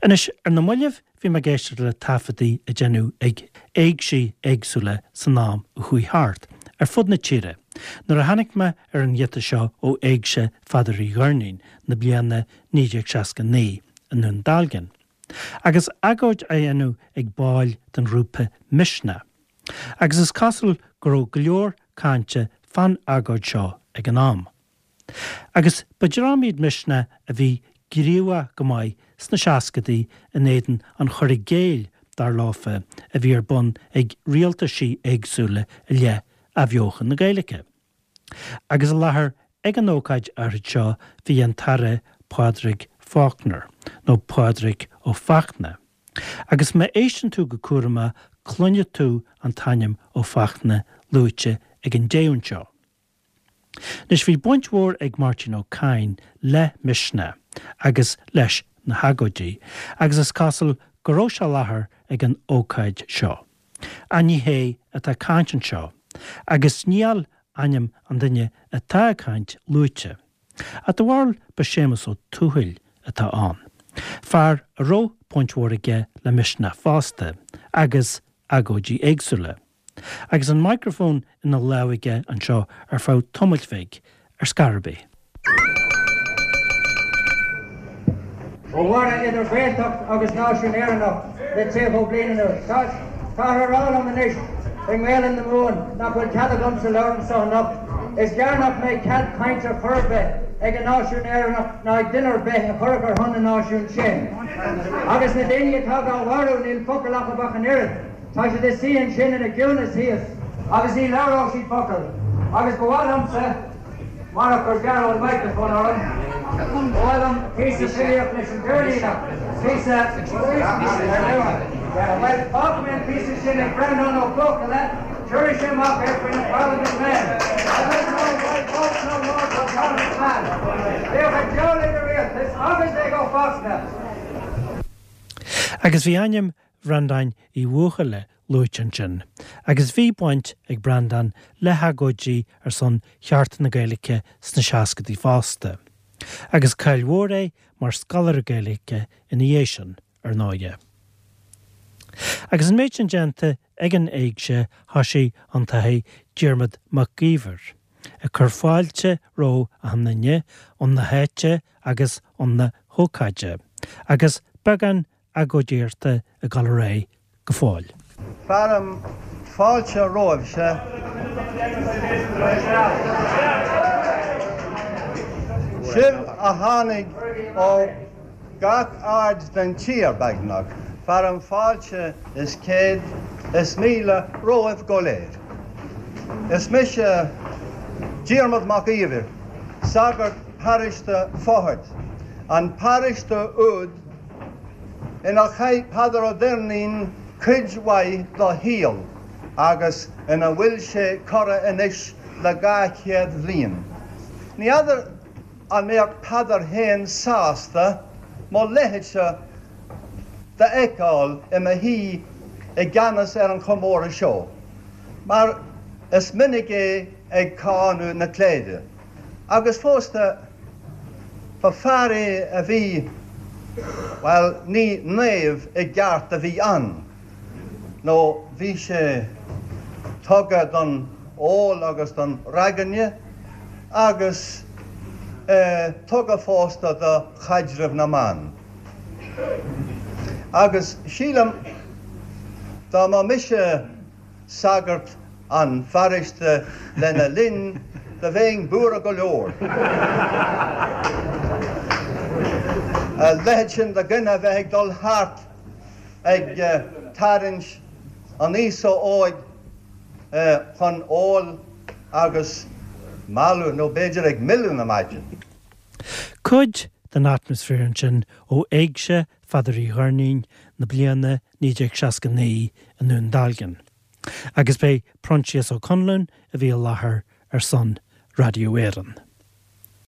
Anois, ar na mallaibh bhí mé ag éisteacht le taifeadtaí a deineadh ag éigsí éagsúla san am a chuaigh thart, ar fud na tíre, nuair a tháinig mé ar an ghiota seo ó Éigse Pheadair Uí Dhoirnín na bliana 1969 i nDún Dealgan. Agus agóid á dhéanamh ag baill den ghrúpa Misneach. Agus is cosúil go raibh go leor cainte fán agóid seo ag an am. Agus ba dream iad Misneach a bhí gníomhach go maith sna seascadaí in éadan an chur i gcéill, dar leofa, a bhí ar bun ag rialtaisí éagsúla i leith athbheochan na Gaeilge. Agus i láthair ag an ócáid áirid seo bhí an tAire Pádraig Faulkner, nó Pádraig Ó Fachtna. Agus má éisteann tú go cúramach cluinfidh tú an t-ainm Ó Fachtna luaite ag an dtéann seo. Anois bhí baint mhór ag Máirtín Ó Cadhain le Misneach agus leis na hagóidí agus is cosúil go raibh sé i láthair ag an ócáid seo. Ach ní hé atá ag caint anseo agus níl ainm an duine atá ag caint luaite. Ach do bharúil ba Séamus Ó Tuathail atá ann, fear a raibh baint mhór aige le Misneach fosta agus agóidí éagsúla. Agus an micreafón ina lámh aige anseo ar feadh tamaill bhig, ar scor ar bith. Ó tharla idir Ghaeltacht agus náisiún Éireannach le 30 bliain anuas. Táthar a rá liom anois i nGaelainn na Mumhan nach bhfuil cead agamsa labhairt anso anocht. Is gearr nach mbeidh cead cainte ar chor ar bith ag an náisiún Éireannach ná ag duine ar bith a chuirfeadh ar shon na náisiún sin. Agus na daoine atá dhá mharú níl focal acu ach an oiread. Tá siad ina suí ansin ina gciúnas thíos agus ní labhróidh siad focal. Agus ba mhaith liomsa, marach gur gearradh an microphone orm, ba mhaith liom píosa filíocht leis an Doirníneach, píosa ar luath. Bhuel, fágfaidh mé an píosa sin ag Breandán Ó Buachalla, tabharfaidh sé amach é faoi na Parliament Men. I don't know why vote no more for Parliament Man. Bíodh an diabhal ag an rialtas agus ag Ó Fachtna! Agus bhí ainm Bhreandáin Uí Bhuachalla luaite ansin, agus bhí baint ag Breandán le hagóidí ar son chearta na Gaeilge sna seascadaí fosta. Agus cáil mhór é mar scoláire Gaeilge ina dhiaidh sin, ar ndóighe. Agus an méid sin déanta ag an éigse, thoisigh an tAthair Diarmaid Mac Íomhair ag cur fáilte roimh achan nduine 'un na háite agus 'un na hócáide, agus beagán agóidíochta ag dul ar aghaidh go fóill. Fearaim fáilte romhaibhse. Sibh a tháinig ó gach aird den tír, beagnach, fearaim fáilte is céad is míle romhaibh go léir. Is mise Diarmaid Mac Íomhair, sagart paróiste Fothaird, an paróiste úd inar chaith Peadar Ó Doirnín cuid mhaith dá shaol agus ina bhfuil sé curtha anois le 200 bhliain. Ní fheadar an mbeadh Peadar féin sásta mo leithéidse d'fheiceáil i mo shuí i gceannas ar an chomóradh seo, mar is minic é ag cáineadh na cléire. Agus fosta, ba fear é a bhí, bhuel, ní naomh i gceart a bhí ann, nó bhí sé tugtha don ól agus don ragairne, agus tugtha fosta do chaidreamh na mban. Agus sílim, dá mba mise sagart an pharóiste lena linn, do bheinn buartha go leor. A leithéid sin de dhuine a bheith ag dul thart ag tarraingt an aosa óig chun óil agus mealladh, nó b'fhéidir ag milleadh na maidine. Cuid den atmaisféar ansin ó Éigse Pheadair Uí Dhoirnín na bliana 1969 i nDún Dealgan. Agus b'é Proinsias Ó Conluain a bhí i láthair ar son Raidió Éireann.